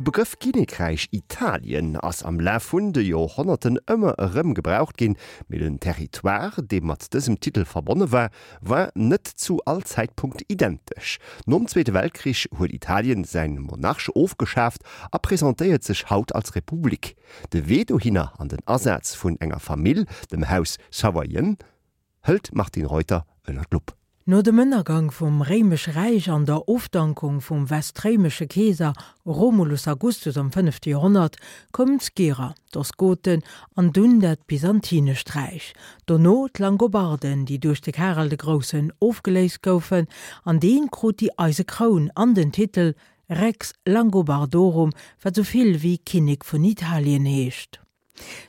De Begrëff Kinnekräich Italien ass am Laf vun de Joerhonnerten ëmmer erëm gebraucht ginn, mee den Territoire, dee mat dësem Titel verbonne war, war net zu all Zäitpunkt identesch. Nom Zweete Weltkrich huet Italien säin Monarch ofgeschaaft a presentéiert sech haut als Republik. De Wee dohinner an den Asaz vun enger Famill, dem Haus Savoyen, hëlt d'Martine Reuter ënner d'Lupp. No dem Ënnergang vum Réimesche Räich an der Ofdankung vum westréimesche Keeser Romulus Augustus am fënnefte Joerhonnert koumen d'Skyrer, d'Ostgoten an dunn dat Byzantinescht Räich. Dono d'Langobarden, déi duerch de Karel de Groussen ofgeléist goufen, an dee krut déi eise Kroun an den Titel Rex Langobardorum, wat sou vill wéi Kinnek vun Italien heescht.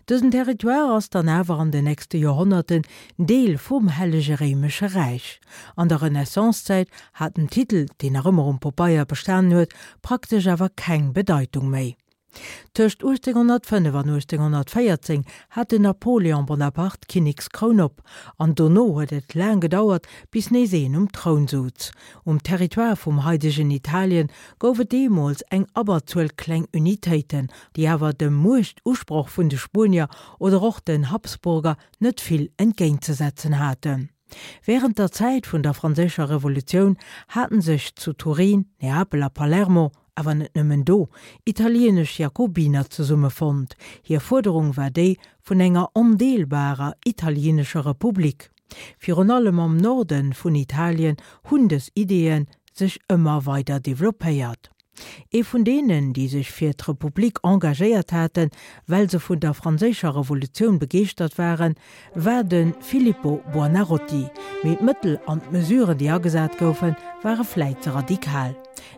Dësen Territoire ass dann awer an den nächste Joerhonnerten Deel vum Hellege Réimesche Räich. An der Renaissancezäit hat den Titel, deen nach ëmmer um Popeier bestanen huet, praktesch awer keng Bedeitung méi. Tëscht 1805 an 1814 hat den Napoléon Bonaparte d'Kinnekskroun op, an dono huet et laang gedauert, bis nees een um Troun souz. Um Territoire vum haidegen Italien gouf et deemools eng Abberzuel kleng Unitéiten, déi awer dem Muechtusproch vun de Spuenier oder och den Habsburger net vill entgéintzesetzen haten. Wärend der Zäit vun der Franséischer Revolutioun haten sech zu Turin, Neapel a Palermo, awer net nëmmen do, italieenesch Jakobiner zesummefonnt. Hir Fuerderung war déi vun enger ondeelbarer italieenescher Republik. Virun allem am Norde vun Italien hunn dës Ideeë sech ëmmer weider developpéiert. Ee vun deenen, déi sech fir d'Republik engagéiert haten, well se vun der Franséischer Revolutioun begeeschtert waren, war de Filippo Buonarroti. Mee d'Mëttel an d'Mesuren, déi agesat goufen, ware vläit ze radikal.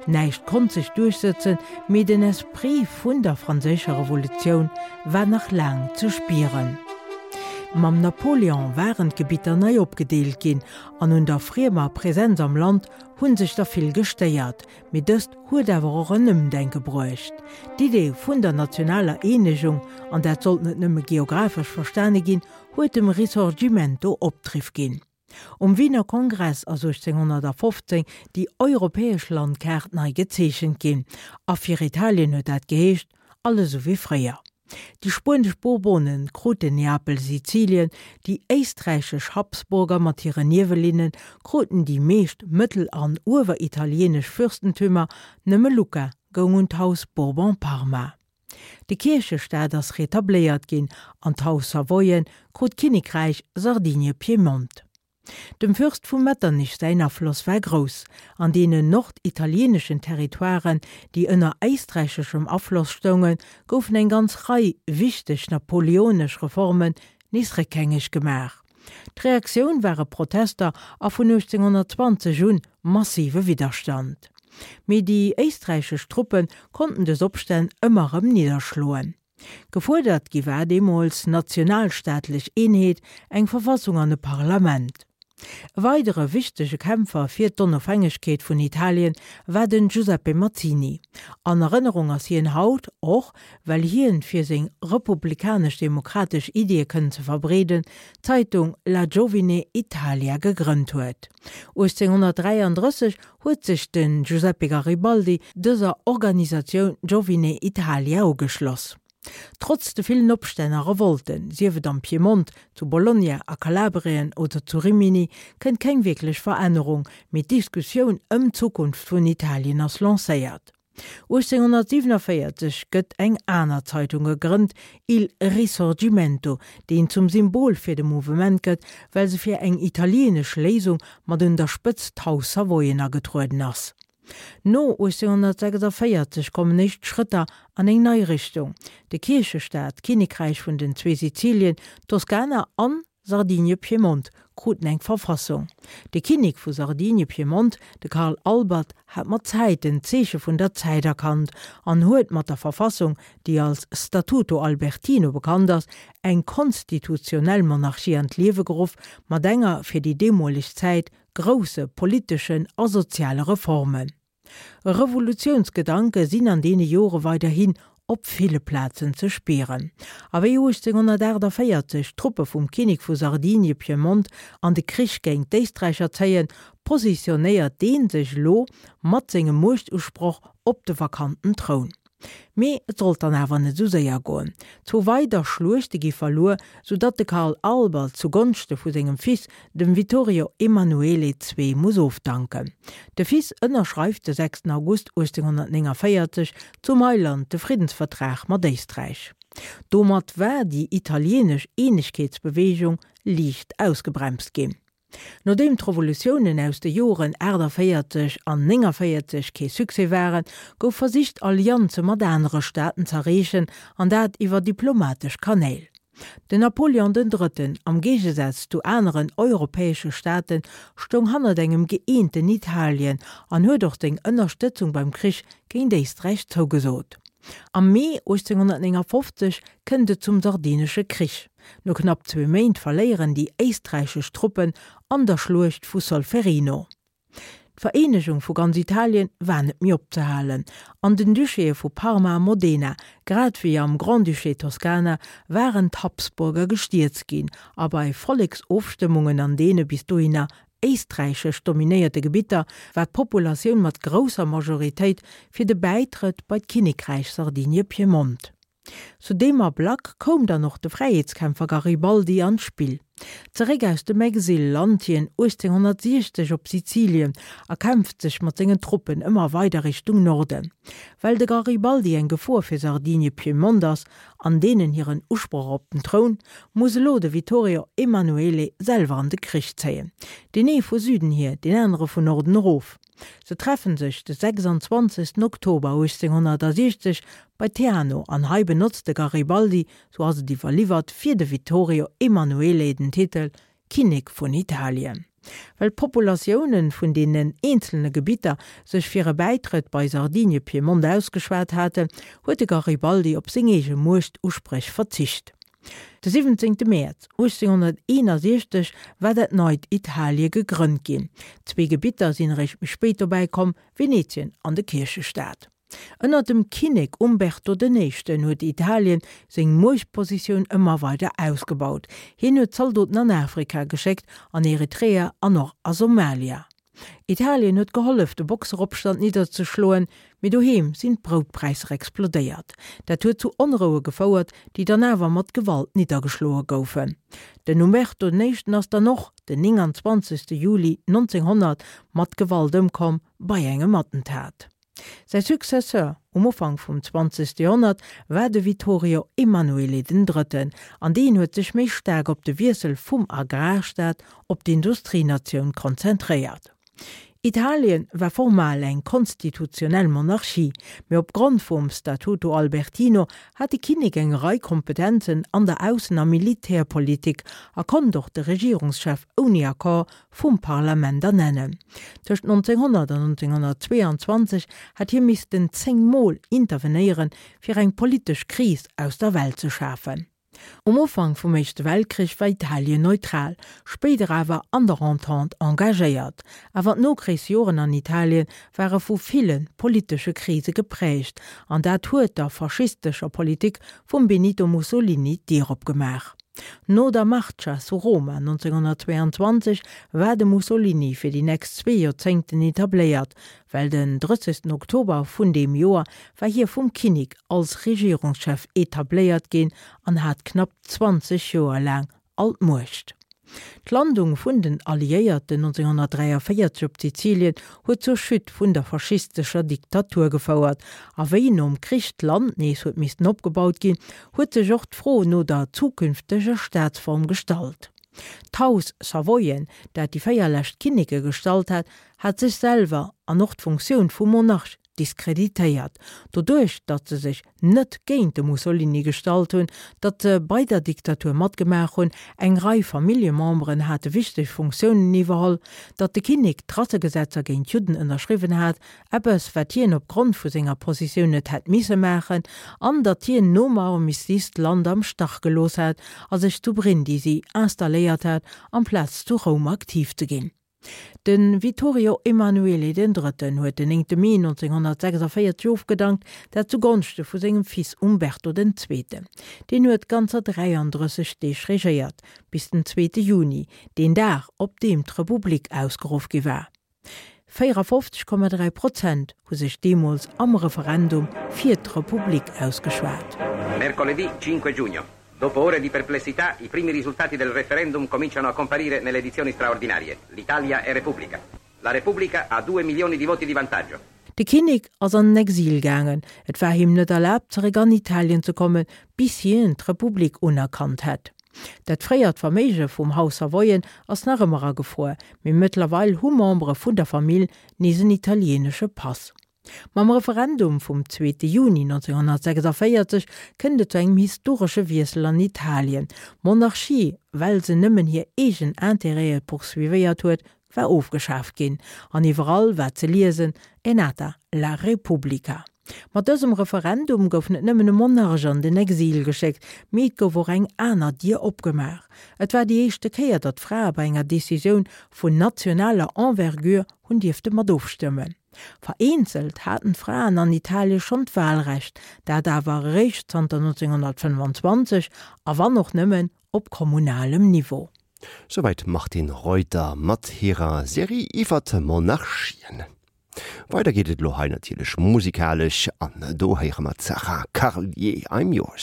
Näischt konnt sech duerchsëtzen, mee den Esprit vun der Franséischer Revolutioun war nach laang ze spieren. Mam Napoléon waren d'Gebitter nei opgedeelt ginn an un der friemer Präsenz am Land hu sech der vill gestéiert. Mee dëst huet awer och en Ëmdenke bruecht. D'Idee vun der nationaler Eenegung, an dat sollt net nëmme geographesch verstane ginn, huet dem Risorgimento Opdriff ginn. Um Wiener Kongress ass 1815 déi europäesch Landkaart nei gezeechent ginn, a fir Italien huet dat geheescht, alles esou wéi fréier. Déi spuenesch Bourbonen kruten Neapel, Sizilien, déi éisträichesch Habsburger mat hiren Niewelinnen kruten déi meescht mëttel an ueweritalieenesch Fürstentümer, nëmme Lucca goung un d'Haus Bourbon-Parma. De Kierchestaat ass retabléiert ginn an d'Haus Savoyen krut d'Kinnekräich Sardinie-Piemont. Dem Fürst vu Metternich säin Afloss war grouss. An deenen norditalieeneschen Territoiren, déi ënner éisträicheschem Afloss stoungen, goufen eng ganz Rei wichteg napoleonesch Reformen nees réckhängeg gemaach. D'Reaktioun ware Protester a vun 1820 un massive Widderstand. Mee déi éisträichesch Truppe konnten dës Opstänn ëmmer erëm nidderschloen. Gefuerdert gi war deemools nationalstaatlech Eenheet, eng Verfassung an e Parlament. E weidere wichtege Kämpfer fir d'Onofhängegkeet vun Italien war den Giuseppe Mazzini. An Erënnerung ass hien haut och, well hien, fir seng republikanesch-demokratesch Iddie kënnen ze verbreeden, d'Zeitung La Giovine Italia gegrënnt huet. 1833 huet sech de Giuseppe Garibaldi dëser Organisatioun Giovine Italia ugeschloss. Trotz de villen Opstänn a Revolten, sief et am Piemont, zu Bologna, a Kalabrien oder zu Rimini, kënnt keng wierklech Verännerung, mee d'Diskussioun ëm d'Zukunft vun Italien ass lancéiert. 1847 gëtt eng aner Zeitung gegrënnt, Il Risorgimento, deen zum Symbol fir de Mouvement gëtt, well se fir eng italieenesch Léisung mat un der Spëtzt d'Haus Savoyen agetrueden ass. No 1846 kommen éischt Schrëtter an eng nei Richtung, de Kierchestaat, d'Kinnekräich vun den zwee Sizilien, d'Toskana an Sardinie-Piemont kruten eng Verfassung. De Kinnek vu Sardinie-Piemont, de Karl Albert, hat mat Zäiten d'Zeeche vun der Zäit erkannt an huet mat der Verfassung, déi als Statuto Albertino bekannt ass, eng konstitutionell Monarchie an d'Liewe geruff, mat enger fir déi deemoleg Zäit grousse politeschen a soziale Reformen. Revolutiounsgedanke sinn an deene Jore weiderhin op ville Plazen ze spieren. A wéi 1848 d'Truppe vum Kinnek vu Sardinie-Piemont an de Krich géint d'Éisträicher zéien, positionéiert dee sech elo mat sengem Muechtusproch op de vakanten Troun. Mee et sollt dann awer net esou séier goen. Zwou weider Schluechte gi verluer, sou datt de Karl Albert zu Gonschte vu sengem Fils, dem Vittorio Emanuele ii, muss ofdanken. De Fils ënnerschreift de 6 August 1849 zu Mailand de Friddensvertrag mat Éisträich. Domat war déi italieenesch Eenegkeetsbeweegung liicht ausgebremst ginn. Nodeem d'Revolutiounen aus de Joren 48 an 49 kee Succès waren, gouf versicht Allianze mat anere Staaten z'erreechen, an dat iwwer diplomatesch Kanäl. Den Napoleon den Drëtten, am Géigesaz zu aneren europäesche Staaten, stoung hannert engem gëeenten Italien an huet och seng Ënnerstëtzung beim Krich géint Éisträich zougesot. Am Mee 1859 kënnt et zum Sardinesche Krich. No knapp zwee Méint verléieren déi éisträichesch Truppen an der Schluecht vu Solferino. D'Vereenegung vu ganz Italien war net méi opzehalen. An den Duchéë vu Parma a Modena, grad wéi am Grand-Duché Toskana, waren d'Habsburger gestierzt ginn a bei Volleksofstëmmungen an deene bis dohinner éisträichesch dominéierte Gebitter war d'Populatioun mat grousser Majoritéit fir de Bäitrëtt bei d'Kinnekräich Sardinie-Piemont. Zu deem Ablack koum dann och de Fräiheetskämpfer Garibaldi an d'Spill. Zeréck aus dem Exil lant hien 1860 op Sizilien a kämpft sech mat sengen Truppen ëmmer weider Richtung Norden. Well de Garibaldi eng Gefor fir Sardinie-Piemont ass an deenen hiren Usproch op den Troun, muss elo de Vittorio Emanuele selwer an de Krich zéien. Deen ee vu Süden hier, deen anere vun Norden erof. Se treffen sech de 26 Oktober 1860 bei Teano an hei benotzt de Garibaldi, sou ass et iwwerliwwert, fir de Vittorio Emanuele den Titel Kinnek vun Italien. Well d'Populatiounen vun deenen eenzelne Gebitter sech fir e Bäitrëtt bei Sardinie-Piemont ausgeschwat haten, huet de Garibaldi op seng eege Muechtuspréch verzicht. De 17 Mäerz 1861 war dat neit Italie gegrënnt ginn. Zwee Gebitter sinn eréischt méi spéit dobäi komm, Venetien an de Kierchestaat. Ënner dem Kinnek Umberto den Éischten huet Italien seng Muechtpositioun ëmmer weider ausgebaut. Hien huet Zaldoten an Afrika geschéckt, an Eritrea an och a Somalia. Italien huet gehollef, de Boxeropstand nidderzeschloen, mee doheem sinn d'Broutpräisser explodéiert. Dat huet zu Onroue gefouert, déi dann awer mat Gewalt niddergeschloe goufen. Den Umberto den Éischten ass dann och den 29. Juli 1900 mat Gewalt ëmkomm bei engem Attentat. Säi Successeur um Ufank vum zwanzegste Joerhonnert war de Vittorio Emanuele den Drëtten, an deen huet sech méi staark op de Wiessel vum Agrarstaat op d'Industrienatioun konzentréiert. Italien war formal eng konstitutionell Monarchie, mee opgrond vum Statuto Albertino hat de Kinnek eng Rei Kompetenzen an der Aussen a Militärpolitik a konnt och de Regierungschef ouni Accord vum Parlament ernennen. Tëscht 1900 an 1922 hat hie missten 10 Mol intervenéieren, fir eng politesch Kris aus der Welt ze schafen. Um Ufank vum Éischte Weltkrich war Italien neutral, spéider awer an der Entente engagéiert. Awer d'Nokrichsjoren an Italien ware vu ville politesche Krise gepräägt, an dat huet der faschistescher Politik vum Benito Mussolini d'Dier opgemaach. No der Marcia su Roma 1922 war de Mussolini fir déi nächst zwee Joerzéngten etabléiert, well den 30 Oktober vun deem Joer war hie vum Kinnek als Regierungschef etabléiert ginn an hat knapp 20 Joer laang all d'Muecht. D'Landung vun den Alliéierten 1943 op Sizilien huet zur Chute vun der faschistescher Diktatur gefouert, a wéi nom Krich d'Land nees huet missten opgebaut ginn, huet sech och d'Fro no der zukünfteger Staatsform gestallt. D'Haus Savoyen, dat déi 4 lescht Kinneke gestallt hat, hat sech selwer an och d'Funktioun vum Monarch diskreditéiert, doduerch datt se sech net géint de Mussolini gestallt hunn, datt se bei der Diktatur matgemaach hunn, eng Rei Familljememberen hate wichteg Funktiounen iwwerholl, datt de Kinnek d'Rassegesetzer géint d'Judden ënnerschriwwen hat, eppes wat hien op Grond vu senger Positioun net hätt misse maachen, an datt hien nom Armistice d'Land am Stach gelooss hat a sech zu Brindisi installéiert hat, amplaz zu Roum aktiv ze ginn. De Vittorio Emanuele den Drëtten huet den 9 Mee 1946 ofgedankt, dat zu Gonschte vu sengem Fils Umberto den Zweeten. Deen huet ganzer 33 Deeg regéiert, bis den zweete Juni, deen Dag, op deem d'Republik ausgeruff gi war. 54,3 Prozent hu sech deemools am Referendum fir d'Republik ausgeschwat. Mercoledì 5 giugno. Dopo ore di perplessità, i primi risultati del referendum cominciano a comparire nelle edizioni straordinarie. L'Italia è Repubblica. La Repubblica ha due milioni di voti di vantaggio. De Kinnek ass an den Exil gaangen. Et war him net erlaabt, zeréck an Italien ze kommen, bis hien d'Republik unerkannt hätt. Dat fréiert Verméige vum Haus Savoyen ass nach ëmmer agefruer, mee mëttlerweil hu Membere vun der Famill nees en italieenesche Pass. Mam Referendum vum zweete Juni 1946 kënnt et zu engem historesche Wiessel an Italien. D'Monarchie, well se nëmmen hir eegen Intérêtë poursuivéiert huet, war ofgeschaaft ginn an iwwerall war ze liesen, È nata la Repubblica. Mat dësem Referendum gouf net nëmmen e Monarch an den Exil geschéckt, mee et gouf och eng aner Dier opgemaach. Et war déi éischte Kéier, datt Frae bei enger Decisioun vun nationaler Envergure hunn dierfte mat ofstëmmen. Vereenzelt haten d'Fraen an Italie schonn d'Wahlrecht, dat awer eréischt zanter 1925 a wann och nëmmen op kommunalem Niveau. Souwäit d'Martine Reuter mat hirer Serie iwwert Monarchien. Weider geet et elo hei natierlech musikalesch an do héiere mer d'Sarah Carlier, I'm Yours.